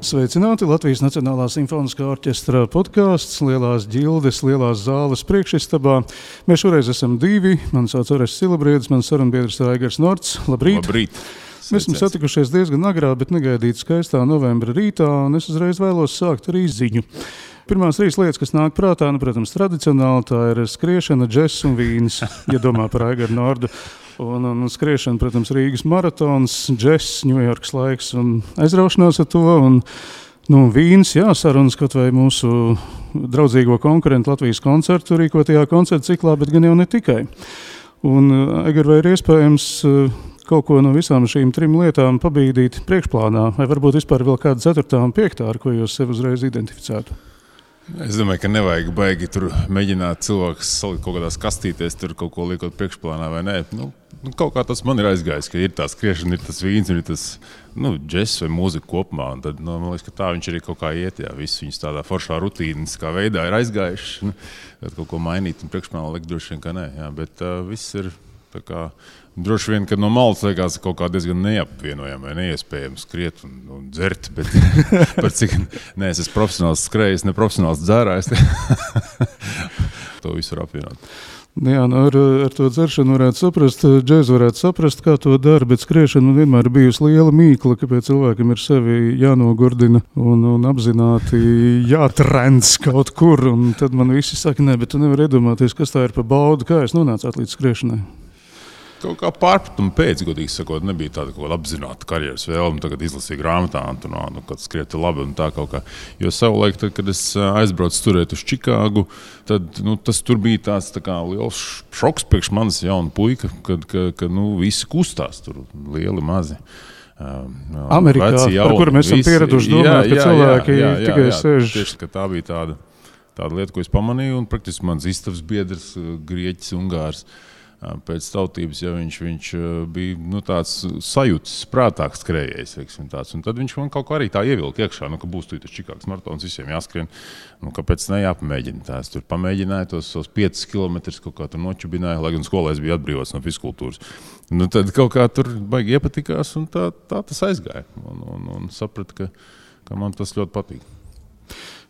Sveicināti Latvijas Nacionālā simfoniskā orķestra podkāsts Lielās ģildes, Lielās zāles priekšistabā. Mēs šoreiz esam divi. Mani sauc Orests Silabriedis, mans sarunbiedrs Aigars Norts. Labrīt! Labrīt! Mēs esam satikušies diezgan agrā, bet negaidīt skaistā novembra rītā, un es uzreiz vēlos sākt ar izziņu. Pirmās 3 lietas, kas nāk prātā, protams, tradicionāli, tā ir skriešana, džess un vīns, ja domā par Aigaru Nordu. Un skriešana, protams, Rīgas maratons, džess, Ņujorkas laiks un aizraušanās ar to. Un vīns, jā, sarunas kaut vai mūsu draudzīgo konkurentu Latvijas koncertu rīkotajā koncertu ciklā, bet gan jau ne tikai. Un, Aigar, vai ir iespējams kaut ko no visām šīm 3 lietām pabīdīt priekšplānā? Vai varbūt vispār vēl kāda 4. un 5. ar ko jūs sev uzreiz identificētu? Es domāju, ka nevajag baigi tur mēģināt cilvēkus salikt kaut kādās kastītēs, tur kaut ko liekot priekšplānā vai nē. Kaut kā tas man ir aizgājis, ka ir tā skriešana, ir tas vīns, ir tas džess vai mūzika kopumā. Un tad, man liekas, ka tā viņš arī kaut kā iet, jā, viss viņas tādā foršā rutīniskā veidā ir aizgājuši. Tad kaut ko mainīt un priekšplānā likt droši vien, ka nē, jā, bet viss ir tā kā droši vien, ka no malas liekas kaut kā diezgan neapvienojami vai neiespējami skriet un dzert, bet par cik es esmu profesionāls skrējis, ne profesionāls dzērājs. To visu var apvienot. Jā, ar to dzeršanu varētu saprast, džēzu varētu saprast, kā to dara, bet skriešana vienmēr ir bijusi liela mīkla, kāpēc cilvēkam ir sevi jānogurdina un apzināti jātrends kaut kur, un tad man visi saka, nē, bet tu nevar iedomāties, kas tā ir pa baudu, kā es nonācāt līdz skriešanai. Kaut kā pārpratuma pēc, godīgi sakot, nebija tāda kaut kāda apzināta karjeras vēlme, tagad izlasīju grāmatā, kad skrieti labi un tā kaut kā. Jo savulaik, tad, kad es aizbraucu turēt uz Čikāgu, tad tas tur bija tāds tā kā liels šoks priekš manis jauna puika, kad visi kustās tur lieli mazi. Amerikā, par kuru mēs esam pieraduši domāt, ka cilvēki tikai sēž. Tieši, ka tā bija tāda lieta, ko es pamanīju, un praktiski mans istabas biedrs, grieķis, ungārs, pēc tautības, ja viņš bija tāds sajūtas, prātāks skrējējs, un tad viņš man kaut kā arī tā ievilka iekšā, ka būs tas Čikāgas maratons, visiem jāskrien, kāpēc ne jāpamēģina tā. Es tur pamēģināju tos 5 kilometrus, kaut kā tur nočubināju, lai gan skolā es biju atbrīvots no fizkultūras. Tad kaut kā tur baigi iepatikās, un tā tas aizgāja, un sapratu, ka man tas ļoti patīk.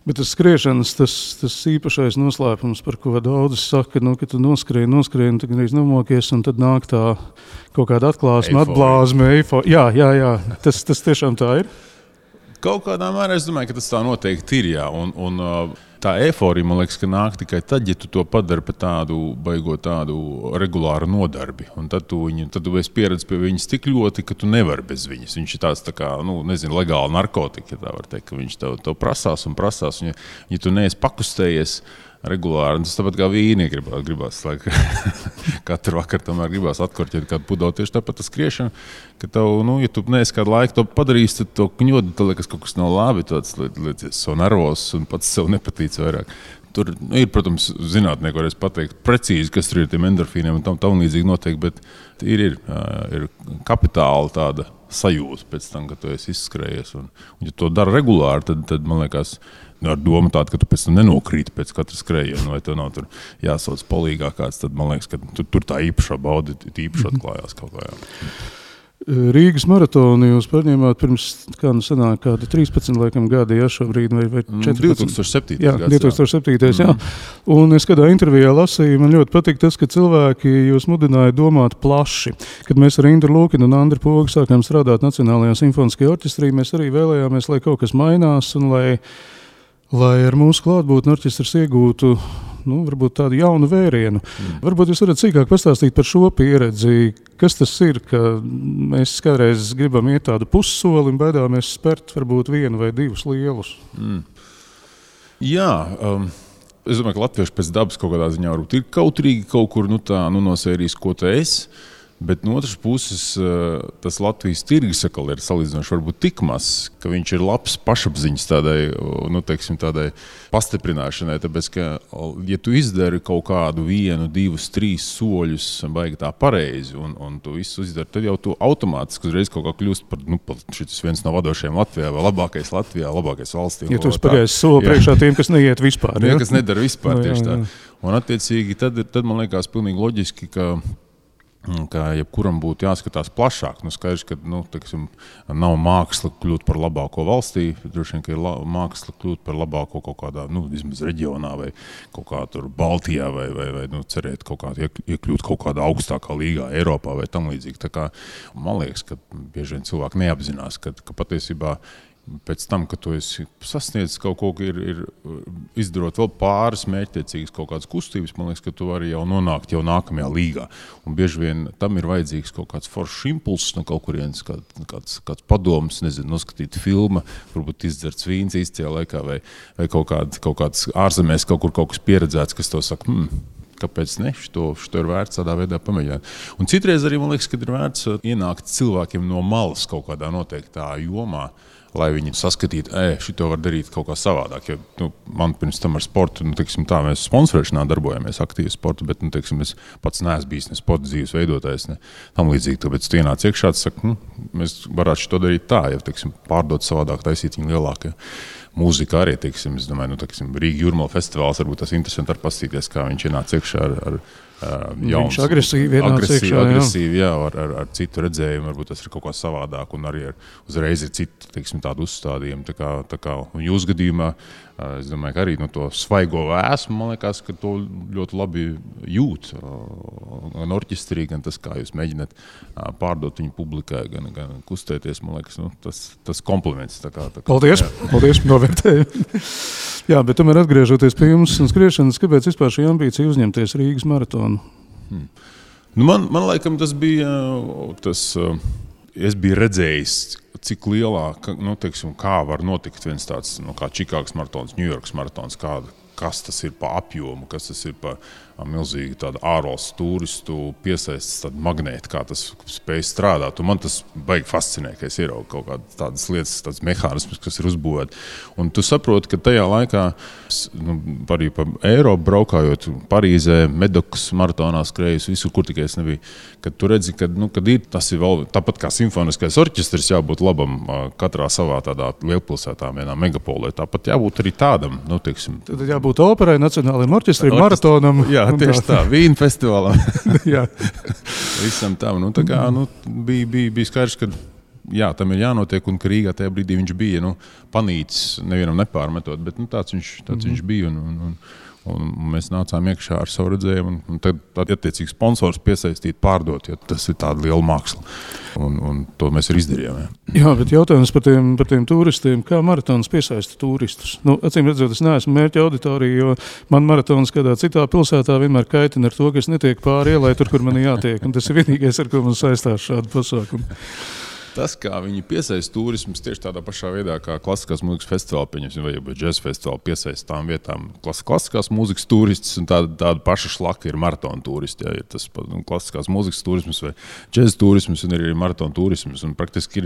Bet tas skriešanas, tas īpašais noslēpums, par ko daudz saka, ka tu noskrien, tad gan nomokies, un tad nāk tā kaut kāda atklāsme, atblāzme, eifo. Jā, tas tiešām tā ir? Kaut kādā mērā es domāju, ka tas tā noteikti ir, jā, un tā eiforija, man liekas, ka nāk tikai tad, ja tu to padari par tādu regulāru nodarbi. Un tad tu esi pieredzis pie viņas tik ļoti, ka tu nevari bez viņas. Viņš ir tāds tā kā, legāli narkotika, ja tā var teikt, ka viņš tev prasās. Un ja tu neesi pakustējies regulāri, tas tāpat kā vīni gribās, katru vakaru tomēr gribās atkorķēt kādu pudeli. Tieši tāpat tas skriešana, ka tev, ja tu neesi kādu laiku to padarījis, tad to kņodu, tad liekas kaut kas nav labi, tāds liecies so nervos un pats sev nepatīc vairāk. Tur ir, protams, zinātnieki varēs pateikt precīzi, kas tur ir tiem endorfīniem un tam līdzīgi noteikti, bet ir kapitāla tāda sajūta pēc tam, ka tu esi izskrējies. Un ja to dara regulāri, tad man liekas, ar domu tādu, ka tu pēc tam nenokrīti pēc katra skrējiena, vai tev nav tur jāsauc polīgā kāds, tad man liekas, ka tur tā īpašā bauda īpaši atklājās kaut kā. Rīgas maratonu jūs paņēmāt pirms kāda 13 gadi, ja šobrīd, vai 14? 2007. Jā, 2007. Jā. Un es kādā intervijā lasīju, man ļoti patīk tas, ka cilvēki jūs mudināja domāt plaši. Kad mēs ar Indru Lūkinu un Andru Pogu sākām strādāt Nacionālajā simfoniskajā orķestrī, mēs arī vēlējāmies, lai kaut kas mainās un lai ar mūsu klātbūtni orķestrs iegūtu varbūt tādu jaunu vērienu. Varbūt jūs varat sīkāk pastāstīt par šo pieredzi. Kas tas ir, ka mēs kādreiz gribam iet tādu pussoli un baidāmies spērt varbūt 1 vai 2 lielus? Jā, es domāju, ka latvieši pēc dabas kaut kādā ziņā varbūt ir kautrīgi kaut kur no sērijas, ko tu esi. Bet no otras puses, tas Latvijas tirgus atkal ir salīdzinoši varbūt tik mazs, ka viņš ir labs pašapziņas tādai pastiprināšanai. Tāpēc, ka, ja tu izdari kaut kādu 1, 2, 3 soļus baigi tā pareizi un tu visu izdari, tad jau tu automātiski uzreiz kaut kā kļūst par šis viens no vadošajiem Latvijā vai labākais Latvijā, labākais valstī. Ja tu spagaisi soli priekšā tiem, kas neiet vispār. Ja, kas nedara vispār tieši tā. Un attiecīgi tad man liekas pilnīgi loģiski, ka ka jebkuram būtu jāskatās plašāk. Skaidrs, ka teiksim, nav māksla kļūt par labāko valstī, droši vien, ka ir māksla kļūt par labāko kaut kādā, vismaz reģionā vai kaut kā tur Baltijā vai cerēt kaut kā iekļūt kaut kādā augstākā līgā Eiropā vai tam līdzīgi. Tā kā, man liekas, ka bieži vien cilvēki neapzinās, ka patiesībā pēc tam, kad tu esi sasniedzis kaut ko, ir izdarot vēl pāris mērķtiecīgas kaut kādas kustības, man liekas, ka tu vari jau nonākt jau nākamajā līgā. Un bieži vien tam ir vajadzīgs kaut kāds foršs impulss no kaut kurienes, kāds padoms, nezinu, noskatīt filmu, varbūt izdzerts vīns īstajā laikā vai kaut kāds ārzemēs kaut kas pieredzēts, kas to saka, kāpēc ne? Šo ir vērts tādā veidā pamēģināt. Un citreiz arī, man liekas, ka ir vērts ienākt cilvēkiem no malas kaut kādā noteiktā jomā, lai viņi saskatītu, šito var darīt kaut kā savādāk. Jo, man pirms tam ar sportu, teiksim tā, mēs sponsorēšanā darbojamies aktīvi sportu, bet, teiksim, es pats neesmu bijis ne sporta dzīves veidotājs, ne tam līdzīgi. Tāpēc tu ienāc iekšā, saka, mēs varētu šito darīt tā, ja, teiksim, pārdot savādāk, taisīt viņu lielākie. Mūzika arī, teiksim, es domāju, Rīga Jūrmala festivāls, varbūt tas interesanti ar pastīties, kā viņš ienāca iekšā ar jauns. Viņš agresīvi, jā, ar citu redzējumu, varbūt tas ir kaut kā savādāk, un arī uzreiz ir citi, teiksim, tādu uzstādījumu. Tā kā un jūs gadījumā, es domāju, ka arī no to svaigo vēsmu, man liekas, ka to ļoti labi jūt gan orķestrī, gan tas, kā jūs mēģināt pārdot viņu publikai, gan kustēties, man liekas, tas kompliments. Paldies, novērtēju. Jā, bet tomēr atgriežoties pie jums un skriešanas, kāpēc vispār šī ambīcija uzņemties Rīgas maratonu? Man laikam tas bija, es biju redzējis, cik lielā, teiksim, kā var notikt viens tāds, kā Čikāgas maratons, Ņujorkas maratons, kas tas ir pa apjomu, kas tas ir pa milzīgi tādu ārvalstu turistu piesaistas tādu magnētu, kā tas spēj strādāt. Un man tas baigi fascinē, ka es ieraugu kaut kādas tādas lietas, tādas mehānismas, kas ir uzbūvēti. Un tu saproti, ka tajā laikā, arī pa Eiropu braukājot, Parīzē, Medokas maratonā skrējus, visur, kur tikai es nebiju, kad tu redzi, kad ir, tas ir vēl tāpat kā simfoniskais orķestris jābūt labam katrā savā tādā lielpilsētā, vienā megapolē. Tāpat jābūt arī tādam, teiksim. Tad jābūt operai, nacionālajiem orķestrim, maratonam. Jā, tieši tā, Vīna festivālam. Jā. Visam tam. Bija skaidrs, ka jā, tam ir jānotiek, un ka Rīgā tajā brīdī viņš bija panīcis, nevienam nepārmetot, bet tāds viņš bija. Un mēs nācām iekšā ar savu redzējumu, un tad attiecīgi sponsors piesaistīt, pārdot, jo tas ir tāda liela māksla. Un to mēs arī izdarījām. Jā, bet jautājums par tiem turistiem, kā maratons piesaista turistus? Acīm redzot, es neesmu mērķa auditorija, jo man maratons kādā citā pilsētā vienmēr kaitina ar to, ka es netiek pāri ielai tur, kur man jātiek. Un tas ir vienīgais, ar ko man saistās šādu pasākumu. Tas, kā viņi piesaista turismus, tieši tādā pašā veidā, kā klasiskās mūzikas festivāli, pieņemsim, vai džeza festivāli piesaista tām vietām klasiskās mūzikas turistus, un tāda paša šlaka ir maratona turisti. Jā, ir tas klasiskās mūzikas turismus vai džeza turismus, un ir maratona turismus. Un praktiski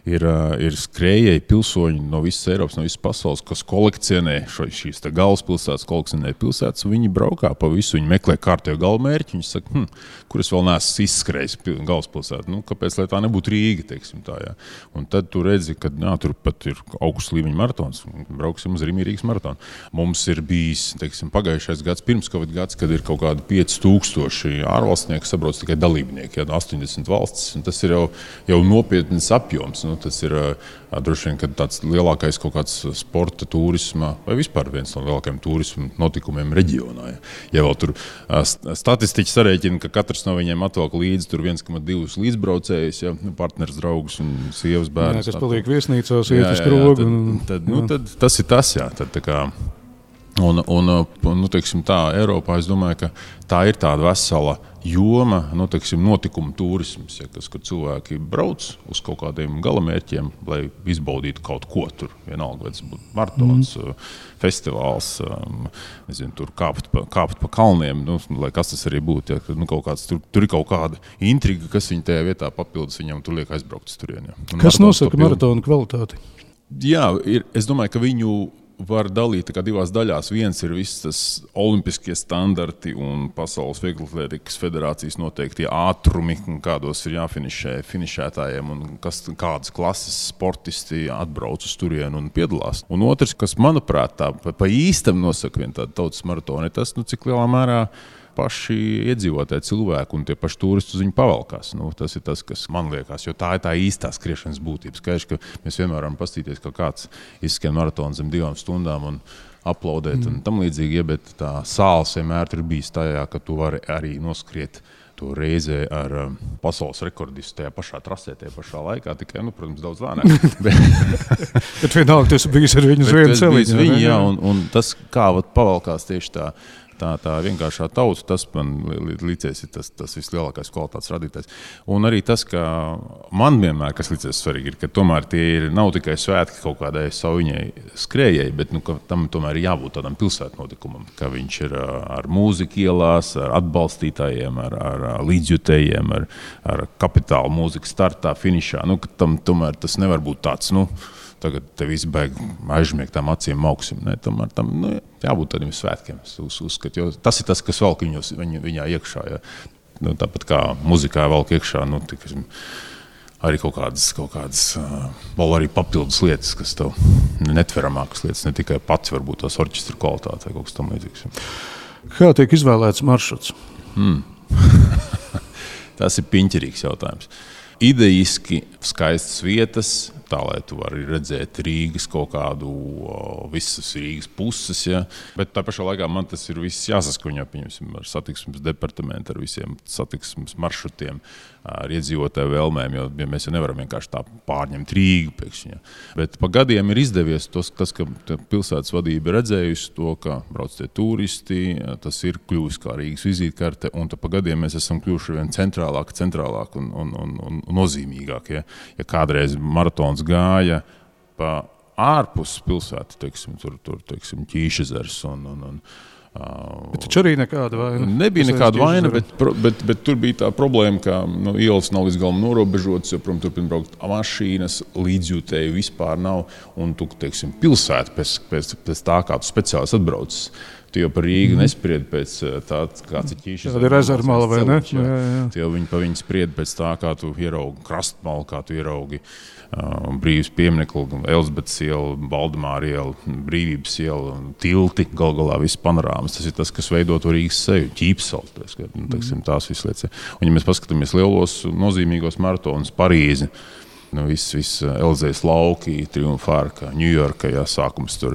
ir skrējēji pilsoņi no visas Eiropas, no visas pasaules, kas kolekcionē šīs galvaspilsētas, kolekcionē pilsētas, un viņi braukā pa visu, viņi meklē kārtējo galvmērķi, viņi saka, kur es vēl neesmu izskrējis galvaspilsētu, kāpēc, lai tā nebūtu Rīga, teiksim. Tā, jā. Un tad tu redzi, ka tur pat ir augsts līmeņa maratons. Brauksim uz Rīgas maratonu. Mums ir bijis, teiksim, pagājušais gads, pirms Covid gads, kad ir kaut kādi 5000 ārvalstnieki sabrauc tikai dalībnieki, 80 valstis. Un tas ir jau nopietns apjoms. Tas ir droši vien, kad tāds lielākais kaut kāds sporta turisma vai vispār viens no lielākajiem turisma notikumiem reģionā. Ja vēl tur statistiķi sarēķina, ka katrs no viņiem atvelk līdzi tur 1,2 līdzbraucējus, partners, draugus un sievas bērnus. Jā, kas paliek viesnīcās, iet uz krogu. Tad tas ir tas, jā. Tad, tā kā, teiksim tā, Eiropā, es domāju, ka tā ir tāda vesela joma, teiksim, notikumu turisms, kur cilvēki brauc uz kaut kādiem galamērķiem, lai izbaudītu kaut ko tur. Vienalga, vai tas būtu maratons, festivāls, nezinu, tur kāpt pa kalniem, lai kas tas arī būtu. Ja, kaut kāds, tur ir kaut kāda intriga, kas viņa tajā vietā papildus, viņam tur liek aizbraukt uz turieni. Kas nosaka maratonu kvalitāti? Jā, es domāju, ka viņu var dalīt divās daļās. Viens ir viss tas olimpiskie standarti un Pasaules vieglatlētikas federācijas noteiktie ātrumi, kādos ir jāfinišē finišētājiem un kādas klases sportisti atbrauc uz turienu un piedalās. Un otrs, kas, manuprāt, tā pa īstam nosaka viena tāda tautas maratona, ir tas, cik lielā mērā paši iedzīvotāji cilvēki un tie paši turisti uz viņu pavalkās. Tas ir tas, kas man liekas, jo tā ir tā īstā skriešanas būtība. Skaidrs, ka mēs vienmēr varam pastīties, ka kāds izskrien maratonu zem 2 stundām un aplaudēt un tam līdzīgi, bet tā sāls vienmēr ir bijis tajā, ka tu vari arī noskriet to reizē ar pasaules rekordistu tajā pašā trasē, tajā pašā laikā, tikai, protams, daudz lēnāk. Bet vienalga, tas bijis ar viņu uz vienu celiņu. Jā, un tas, kā pavalkās tieši tā vienkāršā tauta, tas man līdzies ir tas vislielākais kvalitātes radītājs. Un arī tas, ka man vienmēr, kas līdzies svarīgi, ir, ka tomēr tie nav tikai svētki kaut kādai saviņai skrējai, bet ka tam tomēr ir jābūt tādam pilsētnotikumam, ka viņš ir ar mūziku ielās, ar atbalstītājiem, ar līdzjutējiem, ar kapitāla mūziku startā, finišā. Ka tam tomēr tas nevar būt tāds, tagad te visi baigi aizžmiegt tām acīm mauksim. Tomēr tam jābūt tādiem svētkiem. Jo tas ir tas, kas velk viņā iekšā. Ja. Tāpat kā muzikā velk iekšā, arī kaut kādas vēl arī papildus lietas, kas tev netveramākas lietas, ne tikai pats varbūt tās orķestra kvalitāte vai kaut kas tam līdzīgs. Kā tiek izvēlēts maršruts? Tas ir piņķerīgs jautājums. Idejiski skaistas vietas, tā, lai tu vari redzēt Rīgas kaut kādu, visas Rīgas puses, ja. Bet tā pašā laikā man tas ir viss jāsaskaņo, pieņemsim, ar satiksmes departamentu, ar visiem satiksmes maršrutiem, ar iedzīvotāju vēlmēm, jo mēs jau nevaram vienkārši tā pārņemt Rīgu pēkšņi. Ja. Bet pa gadiem ir izdevies tas, ka pilsētas vadība ir redzējusi to, ka brauc tie turisti, tas ir kļuvis kā Rīgas vizītkarte, un pa gadiem mēs esam kļuvuši vien centrālāk un nozīmīgāk. Ja kādreiz maratons gāja pa ārpus pilsētu, teiksim, Ķīšezers Bet taču arī nekāda vaina. Nebija nekāda vaina, bet tur bija tā problēma, ka ielas nav līdz galam norobežotas, jo, protams, turpina braukt mašīnas, līdzjūtēju vispār nav, un tu, teiksim, pilsēta pēc tā, kā tu speciālis atbraucis. Tu jau par Rīgu nespriedi pēc tā, kāds ir Ķīšas. Tāda ir rezervmala, vai ne? Tu jau pa viņu spriedi pēc tā, kā tu ieraugi krastmalu, kā tu ieraugi Brīvības pieminekli, Elizabetes iela, Valdemāra iela, Brīvības iela, tilti, galā viss panorāmas. Tas ir tas, kas veido to Rīgas seju, Ķīpsals, tās visas lietas. Un ja mēs paskatāmies lielos nozīmīgos maratonus, Parīzi, viss Elizejas lauki, Triumfārka, Ņujorka, sākums tur,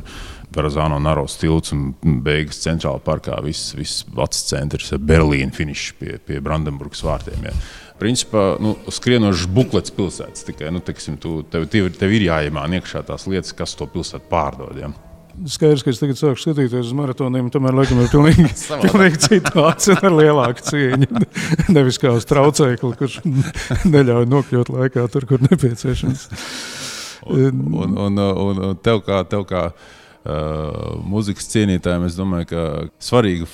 Verrazano Naros tilts un beigas centrāla parkā, viss vecs centrs, Berlīna finišs pie Brandenburgas vārtiem. Ja. Principā, skrienošs buklets pilsētas tikai, tev ir jāiemāna iekšā tās lietas, kas to pilsētu pārdod. Ja. Skaidrs, ka es tagad sāku skatīties uz maratoniem, tomēr laikam ir pilnīgi citāts un ar lielāku cieņu. Nevis kā uz traucēkli, kurš neļauj nokļūt laikā tur, kur nepieciešams. Un tev kā mūzikas cienītājiem, es domāju, ka svarīga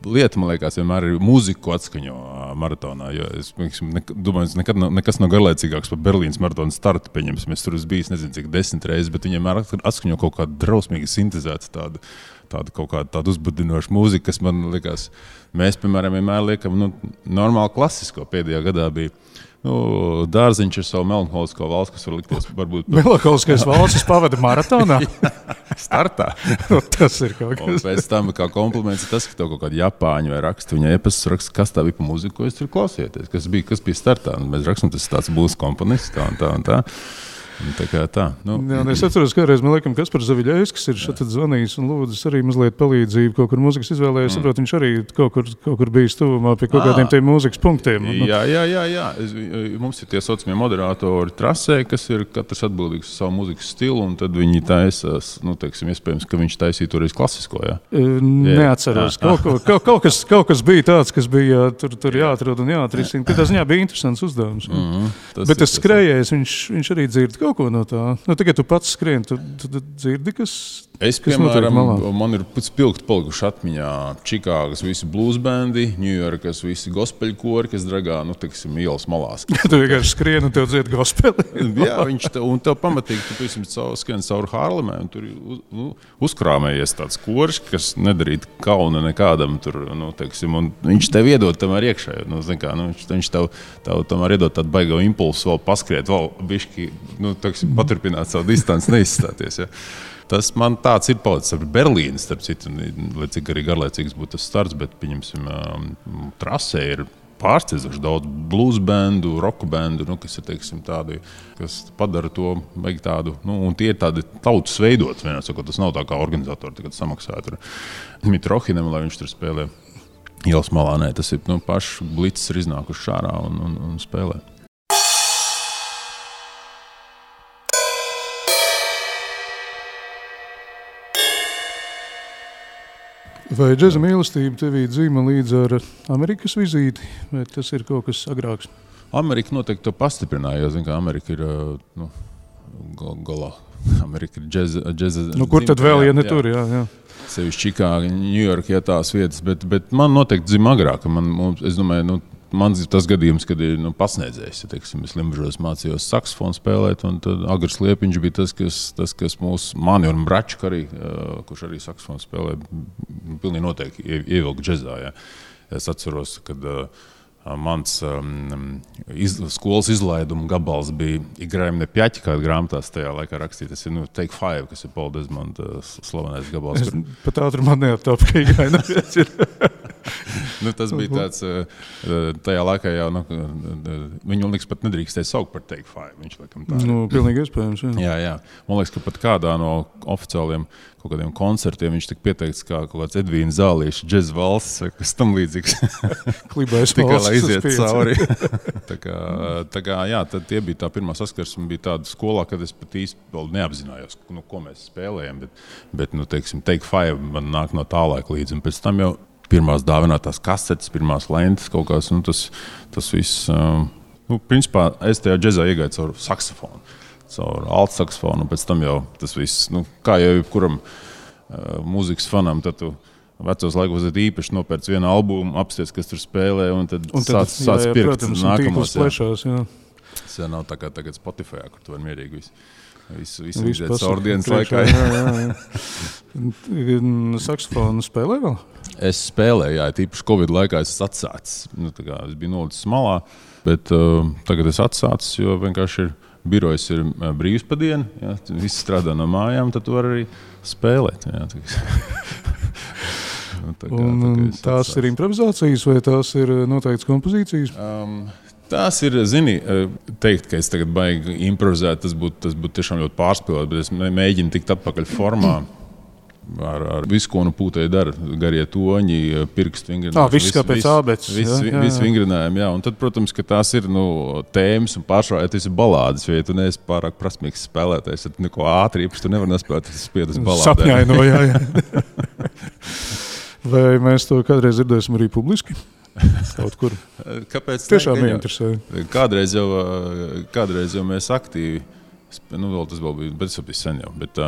lieta, man liekas, vienmēr ir mūziku atskaņo maratonā, jo es domāju, nekas nav garlaicīgāks par Berlīnas maratona startu, pieņemsim, es tur esmu bijis, nezinu, cik 10 reizes, bet viņiem atskaņo kaut kādu drausmīgi sintezētu tādu uzbudinošu mūziku, kas man liekas, mēs, piemēram, vienmēr liekam, normāli klasisko pēdējā gadā bija. Dārziņš ar savu melanholisko valsts, kas var likties varbūt... Melanholiskais valsts pavada maratonā? Startā. Tas ir kaut kas. Un pēc tam, kā kompliments, ir tas, ka tev kaut kādi japāņi vai raksta, viņa e-pastas raksta, kas tā bija pa mūziku, ko es tur klausieties, kas bija startā. Un mēs rakstam, tas tāds būs komponists, tā un tā. Tā. Es atceros, kādreiz man liekas, Kaspars Zaviļevskis ir šeit zvanījis un lūdzis arī mazliet palīdzību kaut kur mūzikas izvēlējis. Saprot, viņš arī kaut kur bijis tuvumā pie kaut kādiem tiem mūzikas punktiem. Jā. Mums ir tie saucamie moderatori trasē, kas ir katrs atbildīgs par savu mūzikas stilu, un tad viņi taisās, iespējams, ka viņš taisīja toreiz klasisko, jā? Neatceros. Kaut kas bija tāds, kas bija tur jāatrod un jāatrisina. Katrā ziņā bija interesants uzdevums. Bet tas skrējējs, viņš arī dzird kaut ko no tā. Tikai tu pats skrien, tu dzirdi, kas piemēram, man ir spilgti palikuši atmiņā Čikāgas visi bluesbendi, Ņujorkas visi gospeļkori, kas dragā, ielas malās. Tu vienkārši skrien un tev dzied gospeli. Jā, un tev pamatīgi, tu skrien cauri Hārlemē, un tur uzkrāmējies tāds koris, kas nedarīt kauna nekādam tur, un viņš tev iedod tamēr iekšā, viņš tev tamēr iedod tādu baigo impulsu vēl paskriet, vēl bišķi, paturpināt savu distanci, neizstāties, ja. tas man tāds ir palicis ar Berlīnu, starp citu, lai cik arī garlaicīgs būtu tas starts, bet, pieņemsim, trasē ir pārsteidzoši daudz blues bandu, roku bandu, kas ir, teiksim, tādi, kas padara to tādu, un tie ir tādi tautas veidots, vienā sakot, tas nav tā kā organizatori, tagad samaksāja tur Mitrohinam, lai viņš tur spēlē ielas malā, nē, tas ir, paši blicis ir iznākuši šārā un spēlē. Vai džeza mīlestība tevī dzīma līdz ar Amerikas vizīti, vai tas ir kaut kas agrāks? Amerika noteikti to pastiprināja, jo, zin, kā Amerika ir, galā. Amerika ir džeza kur tad vēl, ja ne tur, jā. Sevišķi Čikāga, Ņujorka, tās vietas, bet man noteikti dzīma agrāk. Es domāju, man tas gadījums, kad ir pasniedzējis, teiksim, es Limbažos mācījos saksofonu spēlēt, un tad Agars Liepiņš bija tas, kas mani un Bračku arī, kurš arī saksofonu spēlē, pilnīgi noteikti ievilka džezā. Jā. Es atceros, kad mans skolas izlaiduma gabals bija Igraim ne pjaķi, kāda grāmatās tajā laikā rakstīja. Tas ir Take Five, kas ir Paul Desmonda slavenais gabals. Es pat ātri man neaptāpu, ka Igraim ne pjaķi ir. Tas bija tāds, tajā laikā jau, viņu liekas pat nedrīkstēja saukt par Take Five. Viņš laikam tā ir. Pilnīgi iespējams, jā. Jā. Man liekas, ka pat kādā no oficiāliem kaut kādiem koncertiem viņš tika pieteikts kā kaut kāds Edvīna Zālīša džez valsts, kas tam līdzīgs. Klibais tikai, valsts. lai iziet cauri. tā kā, jā, tad tie bija tā pirmā saskarsme, bija tāda skolā, kad es pat īsti vēl neapzinājos, ko mēs spēlējam, bet teiksim, Take Five man nāk no tā laika līdzi, un pēc tam jau pirmās dāvinātās kasetes, pirmās lentes kaut kāds, tas viss, principā es tajā džezā iegāju caur saksofonu, caur alt saksofonu, un pēc tam jau tas viss, kā jau jebkuram mūzikas fanam, tad tu vecos laikos īpaši nopērc vienu albumu, apsties, kas tur spēlē, un tad sāc pirkt protams, nākamos. Plešās, jā. Tas jau nav tā kā tagad Spotify, kur tu var mierīgi visu iziet caur dienas laikā. Jā. Saksofonu spēlē vēl? Es spēlēju, jā, tīpaši Covid laikā es atsācis. Es biju nolicis malā, bet tagad es atsācis, jo vienkārši birojas ir brīvs pa dienu, jā, visi strādā no mājām, tad tu vari arī spēlēt. Jā, tās ir improvizācijas vai tās ir noteikts kompozīcijas? Tās ir, teikt, ka es tagad baigi improvizēt, tas būtu tiešām ļoti pārspēlēt, bet es mēģinu tikt atpakaļ formā. Ar visu, ko pūtēji dara, garie toņi, pirkstu vingrinājumi. Viss kā pēc ābeces. Viss vingrinājumi, jā. Un tad, protams, ka tās ir tēmas un pārsvarā, ja tas ir balādes, jo ja tu neesi pārāk prasmīgs spēlētājs, tad neko ātri īpaši tu nevar nespēlēt, tas spiedas balādē. Sapņaino, jā. Vai mēs to kādreiz dzirdēsim arī publiski? Kaut kur. Kāpēc? Tiešām neinteresē. Kādreiz jau mēs aktīvi. Tas vēl bija, bet tas bija sen jau. Bet,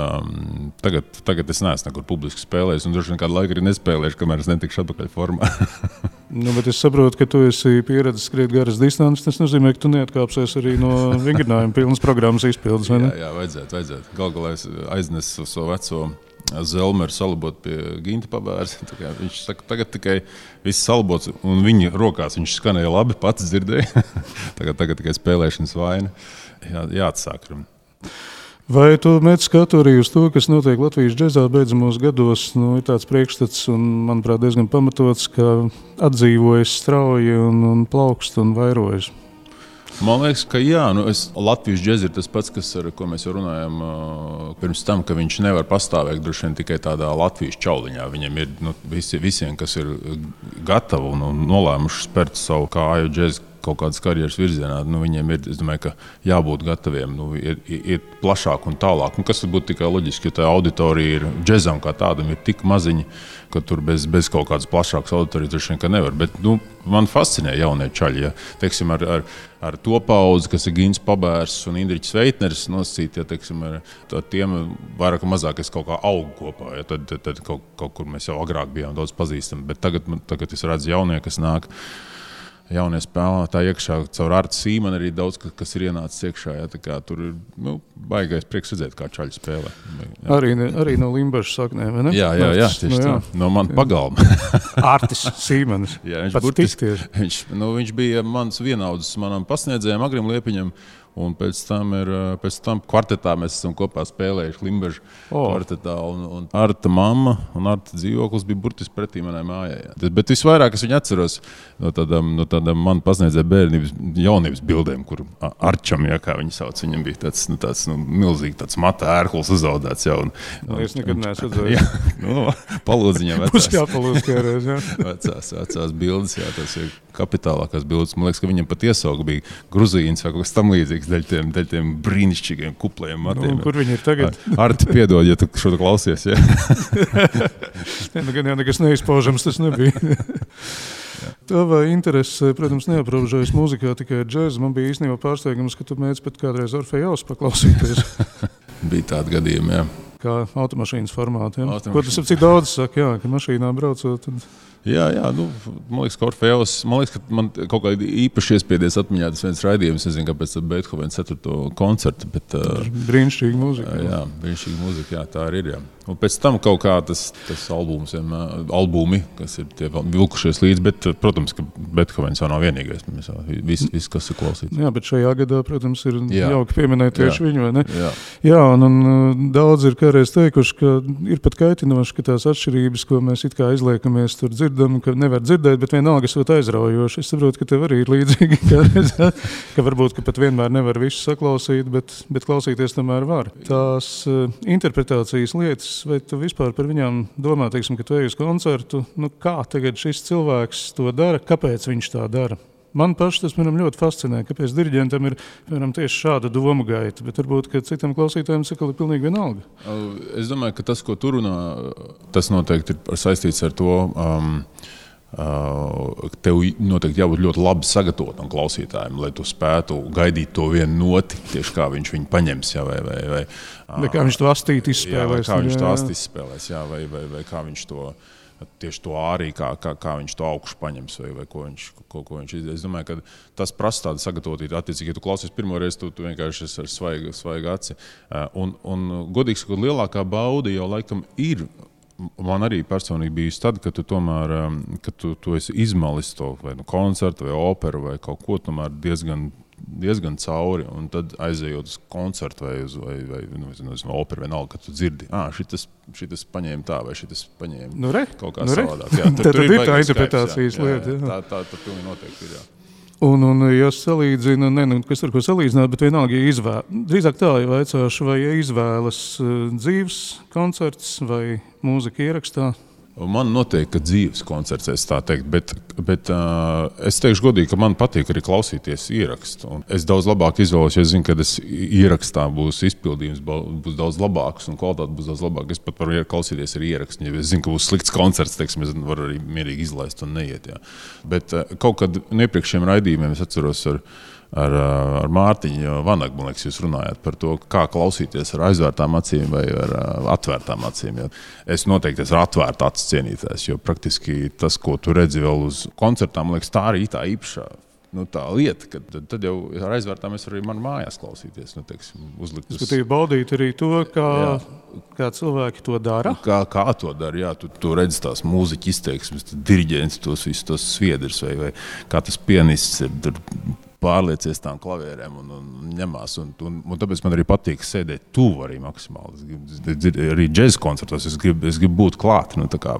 tagad es neesmu nekur publiski spēlējis, un droši vien kādu laiku arī nespēlēšu, kamēr es netikšu atpakaļ formā. Bet es saprotu, ka tu esi pieredzis skriet garas distances. Tas nozīmē, ka tu neatkāpsies arī no vingrinājuma pilnas programmas izpildes, vai ne? Jā, vajadzētu. Galā es aiznesu savu veco Zelmeru salabot pie Ginta Pabērs. Viņš saka, tagad tikai viss salabots, un viņa rokās viņš skanēja labi, pats dzirdēja. tagad tikai spēlēšanas vaina. Jāatsāk. Vai tu mēdz skatu arī uz to, kas notiek Latvijas džezā beidzamos gados? Ir tāds priekšstats, un, manuprāt, diezgan pamatots, ka atdzīvojas strauji un plaukst un vairojas. Man liekas, ka jā, Latvijas džez ir tas pats, ko mēs jau runājam pirms tam, ka viņš nevar pastāvēt droši vien tikai tādā Latvijas čauliņā. Viņam ir visiem, kas ir gatavi un nolēmuši spērt savu kāju džez kaut kādas karjeras virzienā, viņiem ir, es domāju, ka jābūt gataviem, iet plašāk un tālāk. Kas būtu tikai loģiski, jo tā auditorija ir džezam kā tādam ir tik maziņa, ka tur bez kaut kādas plašākas auditorijas droši vien, ka nevar. Bet man fascinē jaunie čaļi. Ja. Teiksim, ar to paudzi, kas ir Gins Pabērs un Indriķis Veitneris nosacīt, ja, teiksim, ar tiem vairāk un mazāk es kaut kā augu kopā. Ja. Tad kaut kur mēs jau agrāk bijām daudz pazīstami. Bet tagad es redzu jaunie, kas nāk. Jaunie spēlētāji iekšā, caur Artu Sīmanu arī daudz, kas ir ienācis iekšā. Ja, tā kā tur ir baigais prieks redzēt, kā čaļi spēlē. Jā. Arī no Limbažas saknēm, vai ne? Jā, tieši tā. No man pagalma. Artis Sīmanis. Jā, viņš bija mans vienaudzis manam pasniedzējam, Agrim Liepiņam. Un pēc tam kvartetā mēs esam kopā spēlējuši Limbažu kvartetā. Un Arta mamma un Arta dzīvoklis bija burtiski pretī manai mājai. Jā. Bet visvairāk es viņu atceros no tādām man pasniedzēja bērnības jaunības bildēm, kur Arčam, jā, kā viņi sauc, viņam bija tāds milzīgi tāds mata ērklis uzaudēts. Jā, es nekad neesmu redzējis. Palūdziņam vecās. Būs jāpalūdz kādreiz, jā. Vecās bildes, jā, tas ir kapitālākās bildes. Man liekas, ka viņam pat iesauga bija Gruzīns vai kaut kas tam līdzīgs daļ tiem brīnišķīgiem kuplajiem matiem. Kur viņi ir tagad? Arti, piedod, ja tu šo klausies, jā. Gan jau nekas neizpaužams tas nebija. Tava interese, protams, neaprobežojas mūzikā tikai ar džēzu. Man bija īstenībā pārsteigums, ka tu mēdz pat kādreiz Orfejaus paklausīties. Bija tādi gadījumi, jā. Kā automašīnas formāti, jā. Ko tas cik daudz saka, jā, ka mašīnā braucot. Jā, man liekas, ka Orfejaus, ka man kaut kādi īpaši iespiedies atmiņā tas viens raidījums, nezinu, kāpēc Beethovena 4. koncertu, bet... Brīnišķīga mūzika. Jā, brīnišķīga mūzika, jā, tā arī ir, jā. Un pēc tam kaut kā tas albumi, kas ir tie vilkušies līdz, bet, protams, ka Beethovens jau nav vienīgais, viss, kas ir klausīts. Jā, bet šajā gadā, protams, ir jauki pieminēt tieši viņu, vai ne? Jā, un daudz ir kādreiz teikuši, ka ir pat kaitinoši, ka tās atšķirības, ko mēs it kā izliekamies tur dzirdam, ka nevar dzirdēt, bet vienalga esot aizraujoši. Es saprotu, ka tev arī ir līdzīgi kādreiz, ka varbūt, ka pat vienmēr nevar visu saklausīt, bet klausīties tomēr var. Tās interpretācijas lietas, vai tu vispār par viņām domā, teiksim, ka tu ej uz koncertu, kā tagad šis cilvēks to dara, kāpēc viņš tā dara? Man paši tas, ļoti fascinē, kāpēc diriģentam ir, tieši šāda domu gaita, bet varbūt, ka citam klausītājiem sakali pilnīgi vienalga. Es domāju, ka tas, ko tu runā, tas noteikti ir saistīts ar to, tev noteikti jābūt ļoti labi sagatavotam klausītājiem, lai tu spētu gaidīt to vienu noti, tieši kā viņš viņu paņems, jā, vai kā viņš to astīt izspēlēs. Jā, kā viņš to astīt izspēlēs, jā, vai kā viņš to, tieši to ārī, kā viņš to augšu paņems, vai ko viņš izdarīs. Es domāju, ka tas prasa tādu sagatavotību. Attiecīgi, ja tu klausies pirmoreiz, tu vienkārši esi ar svaigu aci. Un godīgi sakot, lielākā bauda jau laikam ir, man arī personīgi bijusi tad, kad tu tomēr, kad tu esi izmalis to vai koncertu, vai operu, vai kaut ko tomēr diezgan cauri, un tad aizejot uz koncertu vai operu vienalga, kad tu dzirdi, šitas paņēma tā, vai šitas paņēma kaut kā savādāk. Jā, tad ir tā interpretācijas lieta. Tā pilnīgi noteikti ir, jā. Un ja salīdzina, kas ar ko salīdzināt, bet vienalga, drīzāk tā, ja vaicāšu, vai izvēlas dzīves koncerts vai mūzika ierakstā? Man noteikti, ka dzīves koncerts, es tā teikt, bet es teikšu godīgi, ka man patīk arī klausīties ierakstu. Un es daudz labāk izvēlos, jo es zinu, ka ierakstā būs izpildījums, būs daudz labāks un kvalitāte būs daudz labāka. Es pat varu klausīties arī ierakstu, ja es zinu, ka būs slikts koncerts, teiksim, es varu arī mierīgi izlaist un neiet. Jā. Bet kaut kad iepriekšējiem raidījumiem es atceros ar Mārtiņu Vanagu, man liekas, jūs runājāt par to, kā klausīties ar aizvērtām acīm vai ar atvērtām acīm. Ja. Es noteikti esmu atvērta acis cienītājs, jo praktiski tas, ko tu redzi vēl uz koncertām, man liekas, tā arī tā īpašā tā lieta, ka tad jau ar aizvērtām es varu arī man mājās klausīties, teiksim, uzlikt. Skatīju baudīt arī to, kā cilvēki to dara. Kā to dara, jā, tu redzi tās mūziķa izteiksmes, diriģents, tos visus tos sviedrus vai kā tas pianists ir pārliecies tām klavierēm un ņemās. Un tāpēc man arī patīk sēdēt tuvu arī maksimāli. Arī džēza koncertos es gribu būt klāt, tā kā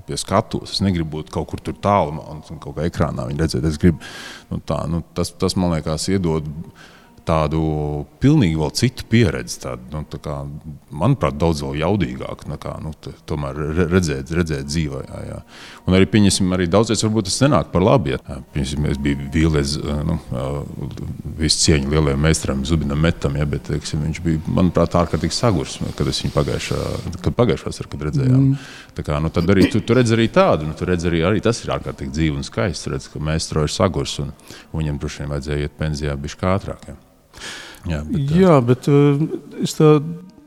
pie skatuves. Es negribu būt kaut kur tur tālumā un kaut kā ekrānā viņu redzēt. Es gribu, tas man liekas iedod tādu pilnīgi vēl citu pieredzi, tā kā, manuprāt, daudz vēl jaudīgāk, tomēr redzēt dzīvē. Jā. Un arī, pieņemsim, arī daudzies varbūt tas nenāk par labi. Ja. Pieņemsim, es biju vīlies, visu cieņu lielajam meistaram Zubinam Metam, ja, bet, teiksim, viņš bija, manuprāt, ārkārtīgi sagurs, kad es viņu pagājušās, kad redzējām. Tā kā, tad arī tu redz arī tādu, tu redz arī tas ir ārkārtīgi dzīvi un skaists, redz, ka meistaro ir sagurs un viņam droši vien vajadzēja iet pensijā bišķi ātrāk. Ja. Bet es tā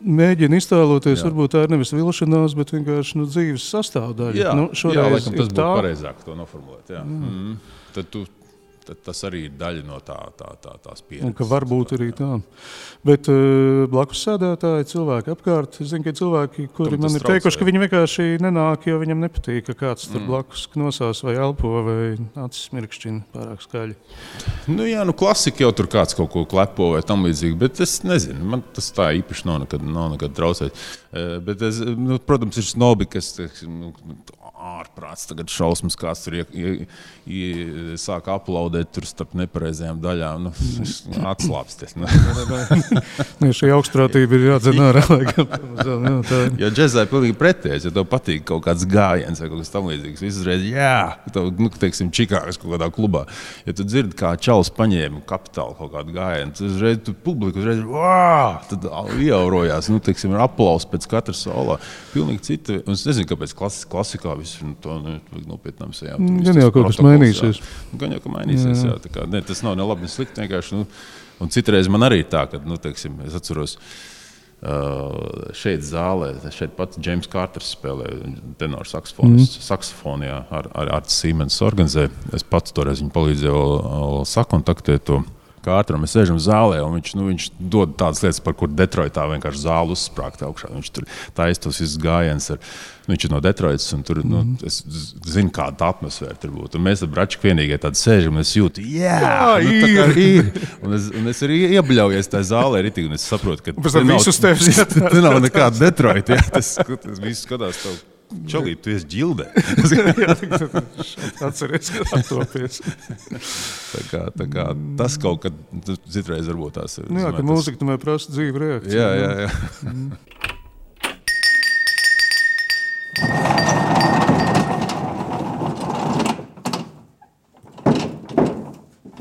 mēģinu iztēloties, varbūt tā ir nevis vilšanās, bet vienkārši dzīves sastāvdaļa. Jā, laikam tas būtu pareizāk to noformulēt. Jā. Tad tas arī ir daļa no tās pieredzes. Un ka varbūt arī tā. Bet blakus sēdētāji, cilvēki apkārt, es zinu, ka cilvēki, kuri man ir teikuši, ka viņi vienkārši nenāk, jo viņam nepatīk, ka kāds tur blakus knosās vai elpo vai acis mirkšķina pārāk skaļi. Klasika jau tur kāds kaut ko klepo vai tam līdzīgi, bet es nezinu, man tas tā īpaši nav nekad traucēt. Bet protams, ir snobi, kas ārprāts tagad šausmas, kāds tur sāk aplaudēt tur starp nepareizajām daļām. Atslāpsties. Šī augstprātība ir jādzen ārā. Jo džezā ir pilnīgi pretējs, ja tev patīk kaut kāds gājiens vai kaut kas tam līdzīgs. Viss uzreiz, teiksim, Čikāgas kaut kādā klubā. Ja tu dzirdi, kā čalis paņēma Kapitālu kaut kādu gājienu, tad uzreiz publika tad ieaurojās, teiksim, ir aplaus pēc katra solā. Pilnīgi cita. Un es nezinu, kāpēc klasikā viss to nopietnām sejām. Gan jau kaut kas mainīsies. Gan jau, ka mainīsies, jā. Tā kā, tas nav ne labi, ne slikti, vienkārši. Un citreiz man arī tā, ka, teiksim, es atceros, šeit zālē, šeit pat James Carters spēlē tenor saksofonu, ar Siemens organizē. Es pats toreiz viņu palīdzēju sakontaktēt to Carteru. Mēs sēžam zālē, un viņš dod tādas lietas, par kur Detroitā vienkārši zāli uzsprāgt augšā. Viņš tur taisa tos visus gājienus. Viņš ir no Detroitas, un tur, es zinu, kāda tā atmosfēra tur būtu. Un mēs ar Bračku vienīgie tādi sēžam, un es jūtu, ir. Un es arī iebļaujies tajā zālē, un es saprotu, ka te nav nekāda Detroita. Tas viss skatās tev. Čalīt, tu esi ģildē. Atceries, ka attopies. tā kā tas kaut kad citreiz varbūt tās ir. Ka mūzika tomēr prasa dzīvu reakciju. Jā.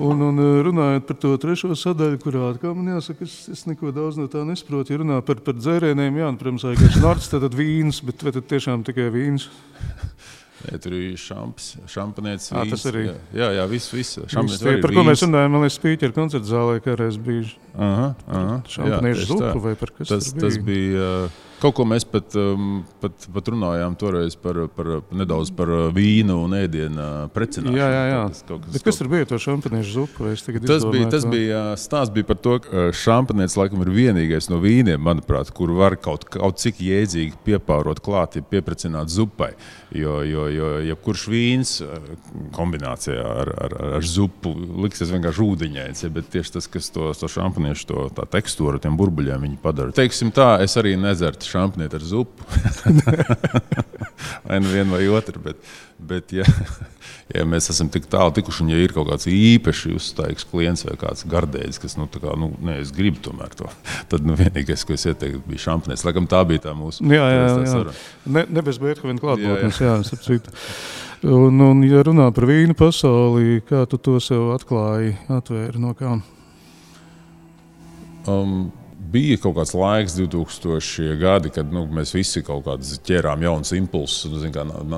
Un runājot par to trešo sadaļu, kurā atkal man jāsaka, es neko daudz no tā nesaprotu. Ja runā par dzērieniem, protams, vienkārši narts, tad vīns, bet vai tad tiešām tikai vīns? Jā, tur ir šampanietis, vīns. Tas arī. Jā, viss. Par ko mēs runājam, man liekas, Spīķeru koncerta zālē, kā reiz bija šampaniešu zupa vai par kas tas bija? Tas bija... Kaut ko mēs pat runājām toreiz nedaudz par vīnu un ēdienu precināšanu. Jā. Bet kas tur bija to šampaniešu zupu? Stāsts bija par to, ka šampanietis laikam ir vienīgais no vīniem, manuprāt, kur var kaut cik jēdzīgi piepārot klāt, ja pieprecināt zupai. Jo jebkurš vīns kombinācijā ar zupu liksies vienkārši ūdeņains, bet tieši tas, kas to šampaniešu tā tekstūru, tiem burbuļiem viņi padara. Teiksim tā, es arī nezertu šampanieti ar zupu. Vai nu vienu vai otru, bet ja mēs esam tik tālu tikuši, un ja ir kaut kāds īpaši uzstājīgs klients vai kāds gardēģis, kas, es gribu tomēr to, tad vienīgais, ko es ieteiktu, bija šampanietis. Laikam tā bija tā mūsu. Jā. Ne bez Beethovena klātbūtnes, starp. Un ja runā par vīnu pasauli, kā tu to sev atvēri no kā? Bija kaut kāds laiks, 2000 gadi, kad mēs visi kaut kādas ķērām jaunas impulsus.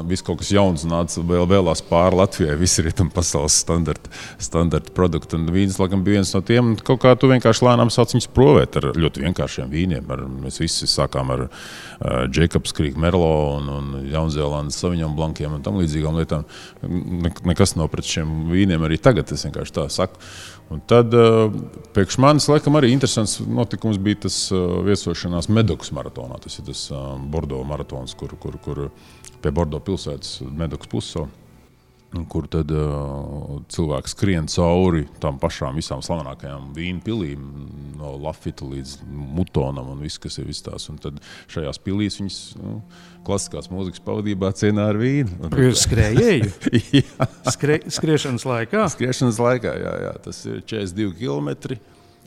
Viss kaut kas jauns nāca vēlās pāri Latvijai. Visi rietumu pasaules standarta produkti. Un vīns, laikam, bija viens no tiem. Kaut kā tu vienkārši lēnām sāc viņus provēt ar ļoti vienkāršiem vīniem. Mēs visi sākām ar Jacobs Creek Merlot un Jaunzēlandes Sauvignon Blanciem un tam līdzīgām lietām. Nekas nav pret šiem vīniem arī tagad, es vienkārši tā saku. Un tad priekš manis, laikam, arī interesants notikums bija tas viesošanās Medokas maratonā. Tas ir tas Bordo maratons, kur pie Bordo pilsētas Medokas pussalu, kur tad cilvēki skrien cauri tām pašām visām slavenākajām vīnu pilīm, no Lafita līdz Mutonam un viss, kas ir viss tās. Un tad šajās pilīs viņas klasiskās mūzikas pavadībā cienā ar vīnu. Skrējēju? Skriešanas laikā? Skriešanas laikā, jā. Tas ir 42 kilometri.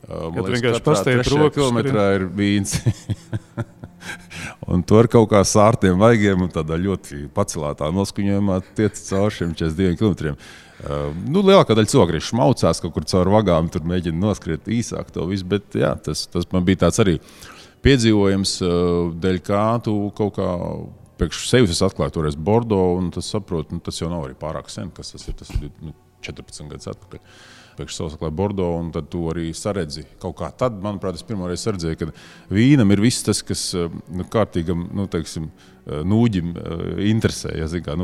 Kad vienkārši pasteipt rokas. Kilometrā ir vīns. Un to ar kaut kā sārtiem vaigiem un tādā ļoti pacelātā noskuņojumā tiec caur šiem 42 kilometriem. Lielākā daļa cilvēku arī šmaucās kaut kur caur vagām, tur mēģina noskriet īsāk to visu, bet jā, tas man bija tāds arī piedzīvojums, dēļ kā tu kaut kā priekš sevis es atklāju toreiz Bordo, un tas saprotu, tas jau nav arī pārāk sen, kas tas ir 14 gadus atpakaļ. Priekš savus atklāju Bordo, un tad tu arī saredzi kaut kā. Tad, manuprāt, es pirmoreiz saredzēju, ka vīnam ir viss tas, kas kārtīgam, teiksim, nūģim interesē. Ja, zin, kā,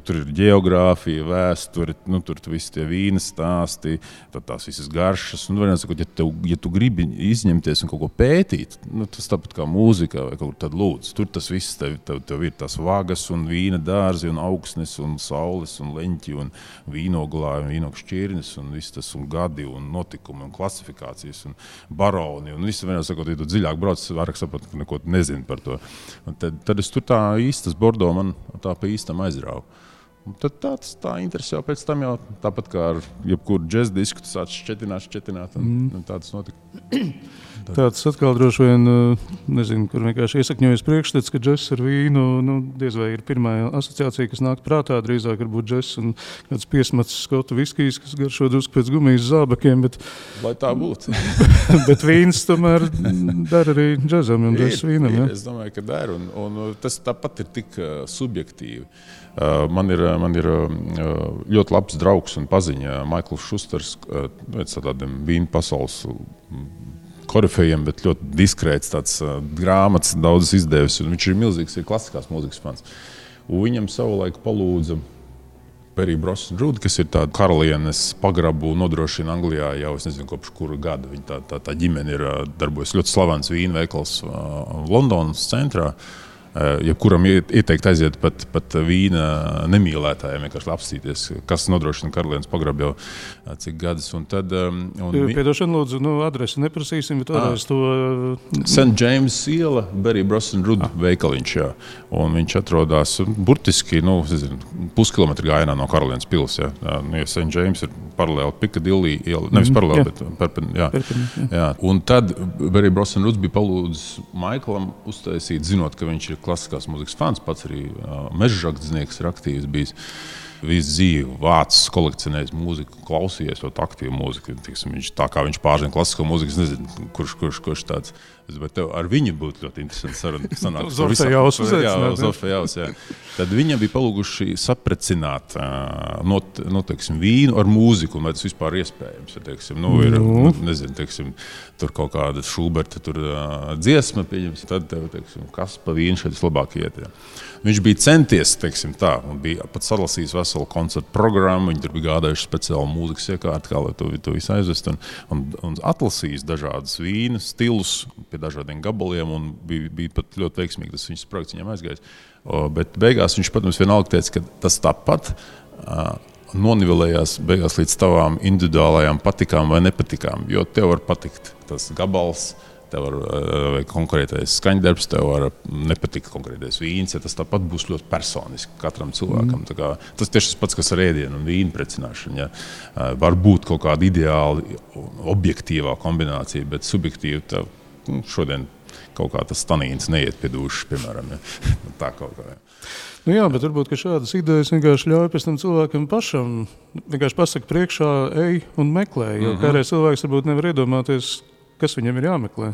tur ir geogrāfija, vēsture, tur visi tie vīna stāsti, tās visas garšas. Sakot, ja tu gribi izņemties un kaut ko pētīt, tas tāpat kā mūzika vai kaut kur tad lūdzu. Tur tas viss tev ir tās vagas un vīna dārzi un augsnes un saules un leņķi un vīnoglāji un vīnogu šķirnes un viss tas un gadi un notikumi un klasifikācijas un baroni un viss. Sakot, ja tu dziļāk brauc, vairāk saprot, ka neko nezinu par to. Un tad es tur tā īstas Bordo man tā pa īstam aizrāvu. Un tad tā interesi jau pēc tam jau tāpat kā ar jebkuru džez disku, tu sāc šķetināt un tāds notika. Tāds atkal droši vien, nezinu, kur vienkārši iesakņojas priekšstats, ka džess ar vīnu, diez vai ir pirmā asociācija, kas nāk prātā, drīzāk varbūt džess un kāds piesmats skotu viskijs, kas garšo drusku pēc gumijas zābakiem, bet... Lai tā būtu. Bet vīns tomēr dara arī džezam un džess vīnam, ja? Es domāju, ka dara, un tas tāpat ir tik subjektīvi. Man ir ļoti labs draugs un paziņa Maikls Šusters, pēc tādiem vīnu pasaules korifejiem, bet ļoti diskrēts tāds grāmatas daudz izdevis, un viņš ir milzīgs, ir klasiskās mūzikas fans. Un viņam savulaik palūdza Berry Brosnan Rood, kas ir tāda karalienes pagrabu nodrošina Anglijā jau, es nezinu, kopš kura gada. Viņa tā ģimene ir darbojas ļoti slavens vīnu veikals Londonas centrā. Jebkuram ieteikt aiziet pat vīna nemīlētājiem, vienkārši apstīties, kas nodrošina karalienes pagrabu jau cik gadus. Un tad, Piedošana, lūdzu, adresi neprasīsim, bet vēlreiz to... St. James iela, Berry Brosnan Rood veikaliņš, jā. Un viņš atrodās burtiski, puskilometru gājienā no karalienes pils, jā. Ja St. James ir paralēli Piccadilly iela, nevis paralēli, bet jā. Un tad Berry Brosnan Rood bija palūdzis Maiklam uztaisīt, zinot, ka viņš ir klasiskās mūzikas fans, pats arī mežžakdznieks ir aktīvs bijis. Visu dzīvi vācis, kolekcionējis mūziku, klausījies ļoti aktīvu mūziku. Tā kā viņš pārzina klasisko mūziku, es nezinu, kurš tāds. Bet tev ar viņu būtu ļoti interesanti saruna. Zofejaus, jā. Tad viņam bija palūguši saprecināt vīnu ar mūziku, un vai tas vispār iespējams. Ir, tur kaut kāda Šuberta dziesma, tad tev, kas pa vīnu šeit vislabāk iet. Jā. Viņš bija centies, un bija pat salasījis veselu koncertu programmu, viņi tur bija gādājuši speciālu mūzikas iekārti, kā lai to visu aizvest, un atlasījis dažādas vīnu stilus pie dažādiem gabaliem, un bija pat ļoti veiksmīgi, tas viņas projekts viņam aizgājis. Bet beigās viņš, protams, vienalga teica, ka tas tāpat nonivelējās beigās līdz tavām individuālajām patikām vai nepatikām, jo tev var patikt tas gabals, tev var konkrētais skaņdarbs, tev var nepatikt konkrētais vīns, ja tas tāpat būs ļoti personiski katram cilvēkam. Tas tieši tas pats, kas ar ēdienu un vīnu precināšanu. Ja. Var būt kaut kāda ideāli objektīvā kombinācija, bet subjektīvi tev šodien kaut kā tas tanīns neiet pie dūšas, piemēram. Ja. Tā kaut kā. Ja. Jā, bet varbūt, ka šādas idejas vienkārši ļauj pēc tam cilvēkam pašam vienkārši pasaka priekšā, ej un meklē, jo kādreiz cilvēks varbūt nevar iedomāties, kas viņam ir jāmeklē.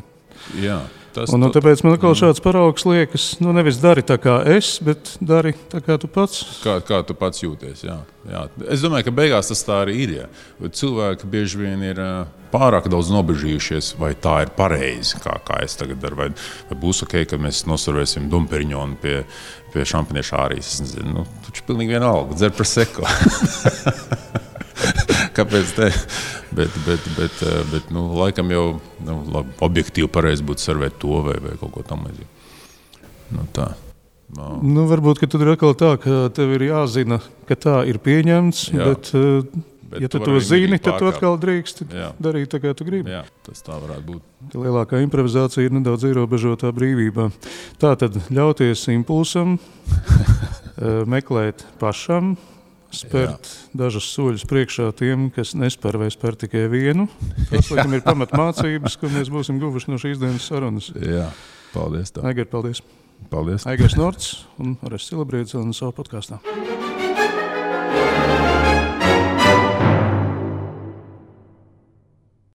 Jā, tāpēc man atkal šāds paraugs liekas, nevis dari tā kā es, bet dari tā kā tu pats. Kā tu pats jūties, jā. Es domāju, ka beigās tas tā arī ir. Ja. Cilvēki bieži vien ir pārāk daudz nobežījušies, vai tā ir pareizi, kā es tagad daru, vai būs ok, ka mēs noservēsim Domperiņonu pie šampanieša ārijas. Es nezinu, taču pilnīgi vienalga, dzer Prosecco. Kāpēc te? Bet laikam jau objektīvi pareizi būtu servēt to vai kaut ko tam līdzīgi. Tā. Varbūt, ka tad ir atkal tā, ka tev ir jāzina, ka tā ir pieņemts, bet ja tu to zini, tad tu atkal drīkst darīt tā, kā tu gribi. Jā, tas tā varētu būt. Lielākā improvizācija ir nedaudz ierobežotā brīvībā. Tā tad ļauties impulsam, meklēt pašam, spērt dažus soļus priekšā tiem, kas nespēr vai spēr tikai vienu. Tas, laikam, ir pamatmācības, ko mēs būsim guvuši no šīs dienas sarunas. Jā, paldies tev. Aigar, paldies. Paldies. Aigars Norts un Orests Silabriedis un savu podkāstā.